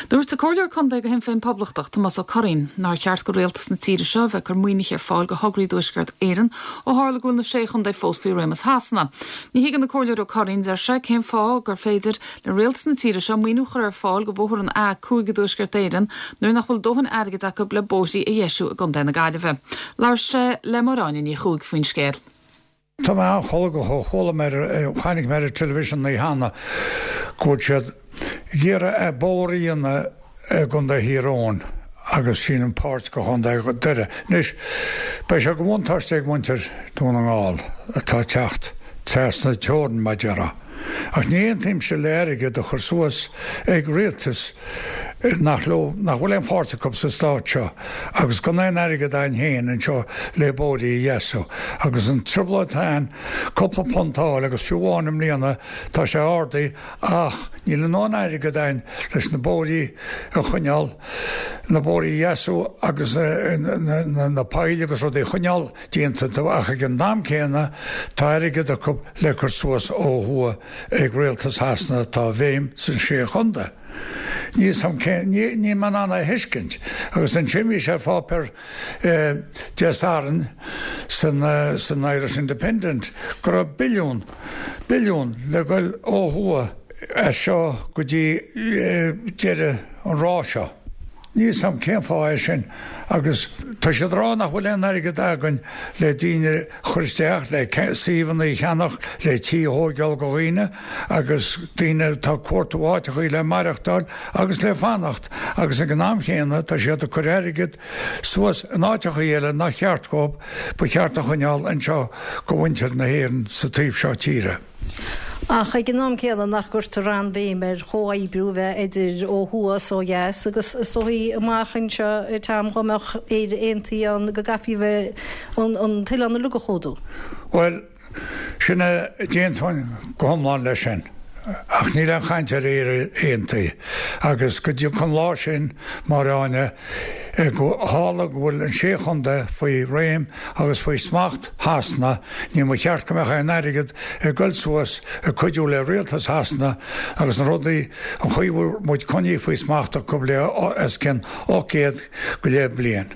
Dúirt an Comhairleoir Contae do Shinn Féin Poblachtach, Tomás Ó Curraoin, nár cheart go rialtas na tíre seo a bheith ag cur maoinithe ar fáil go thograí i dTuaisceart Éireann ó tharla go bhfuil na Sé Chontae fós faoi réimeas Shasana. Ní thuigeann an Comhairleoir Ó Curraoin, deir sé, cén fáth gur féidir le rialtas na tíre seo maoiniú a chur ar fáil go bhóthar an A5 i dTuaisceart Éireann nuair nach bhfuil dóthain airgid acu le bóithrí a dheisiú i gContae na Gaillimhe. Labhair sé le Máire Áine Ní Chuaig faoin scéal. Tá mé an-cholgach ó chuala mé ar, chonaic mé ar an television an oíche cheana go bhfuil siad ag iarraidh bóthar a dhéanamh i gContae Thír Eoghain agus sílim páirt de Chontae Dhoire. Anois, beidh sé de bhuntáiste ag muintir Dún na nGall atá ag teacht trasna teorann, mar a déarfá. Ach ní aontaímse le airgead a chur suas ag rialtas nach leo, nach bhfuil aon pháirt acu sa stát seo agus gan aon airgead againn féin anseo le bóithrí a dheasú. Agus an trioblóid atá ann cúpla punt a fháil agus fiú amháin i mbliana tá sé ardaithe ach níl a ndóthain airgead againn leis na bóithrí a choinneáil, na bóithrí a dheasú agus na poill agus rudaí a choinneáil déanta ach ag an am céanna tá airgead acu le cur suas ó thuaidh ag rialtas Shasana atá i bhfeidhm san sé chontae. Níl 's a'm cén, níl mé in ann é a thuiscint. Agus ansin bhí sé ar pháipéar Dé Sathairn san san Irish Independent go raibh billiún, billiún le goil ó thuaidh as seo go dtí deireadh an ráth seo. Níl 's a'm cén fáth é sin agus tá siad ag rá nach bhfuil aon airgead againn le daoine a chur isteach, le suíomhanna a cheannach, le tithe a thóigeáil go dhaoine agus daoine atá ag cuartú áiteachaí le maireachtáil agus le fanacht agus ag an am chéanna tá siad ag cur airgead suas in áiteachaí eile nach cheart dhóibh, ba cheart a choinneáil anseo go mhuintir na hÉireann sa taobh seo tíre. Ach ag an am céanna nach gcuirtear an-bhéim ar chomhoibriú a bheith idir ó thuaidh is ó dheas agus is dóichí amach anseo a Tom dhá mbeadh Éire aontaithe ann go gcaithfí a bheith an t-oileán uilig a chlúdú. Bhuel, sin é, d'aontóinn go hiomlán leis sin. Ach níl aon chaint ar Éire aontaithe agus go dtiocfaidh an lá sin, Máire Áine, go tharla go bhfuil an sé chontae faoi réim agus faoi smacht Shasana, ní mba cheart go mbeadh aon airgead ag goil suas ag cuidiú le rialtas Shasana agus na rudaí, an chaoi a bhfuil muid coinnithe faoi smacht acu le os cionn 800 go leith bliain.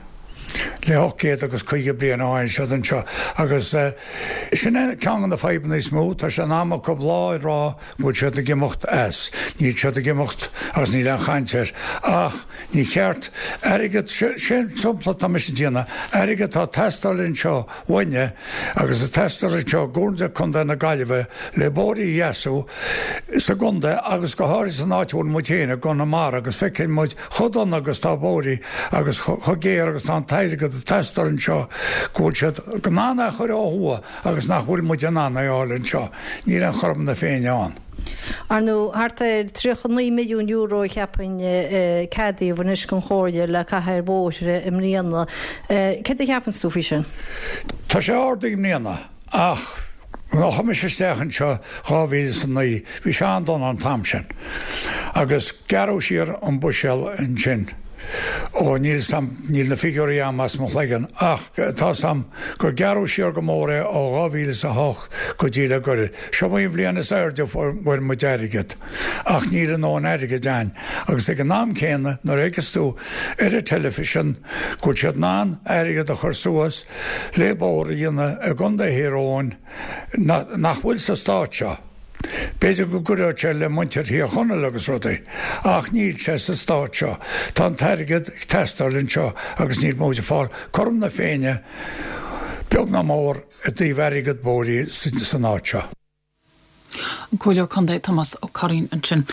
Le 850 bliain ó tháinig siad anseo agus sin é ceann de na fadhbanna is mó, tá sé in am acu lá a rá go bhfuil siad ag imeacht as. Níl siad ag imeacht agus níl aon chaint air. Ach ní cheart airgead, sé an sampla atá mise ag déanamh, airgead atá ag teastáil anseo uainne agus ag teastáil anseo i gComhairle Contae na Gaillimhe le bóithrí a dheasú sa gcontae agus go háirithe san áit a bhfuil muid féin i gConamara agus feiceann muid chomh dona agus tá bóithrí agus chomh géar agus tá an t-airgead ag teastáil anseo go bhfuil siad in ann é a chur ó thuaidh agus nach bhfuil muid in ann é a fháil anseo. Níl aon chothrom na Féinne ann. Ar ndóigh, thart ar €39 milliún a cheapfainn a ceadaíodh anois don Chomhairle le caitheamh ar bhóithre i mbliana. Céard a cheapanns tú faoi sin? Tá sé ardaithe i mbliana ach nuair a chuaigh mise isteach anseo 2009 bhí sé an-dona an t-am sin agus gearradh siar an buiséal ansin. Ó níl 's a'm, níl na figiúirí a'm as mo chloigeann ach tá 's a'm gur gearradh siar go mór é ó 2008 go dtí le gairid. Seo í an bhliain is airde a fuair muid airgead ach níl a ndóthain airgid a'inn agus ag an am céanna nuair a fheiceas tú ar an teilifísean go bhfuil siad in ann airgead a chur suas le bóthar a dhéanamh i gContae Thír Eoghain nach bhfuil sa stát seo. B'fhéidir go gcuideodh sé le muintir Thír Chonaill agus rudaí, ach níl sé sa stát seo. Tá an t-airgead ag teastáil anseo agus níl muid ag fáil cothrom na Féinne, beag ná mór, i dtaobh airgead bóithrí san áit seo. An Comhairleoir Contae Tomás Ó Curraoin ansin.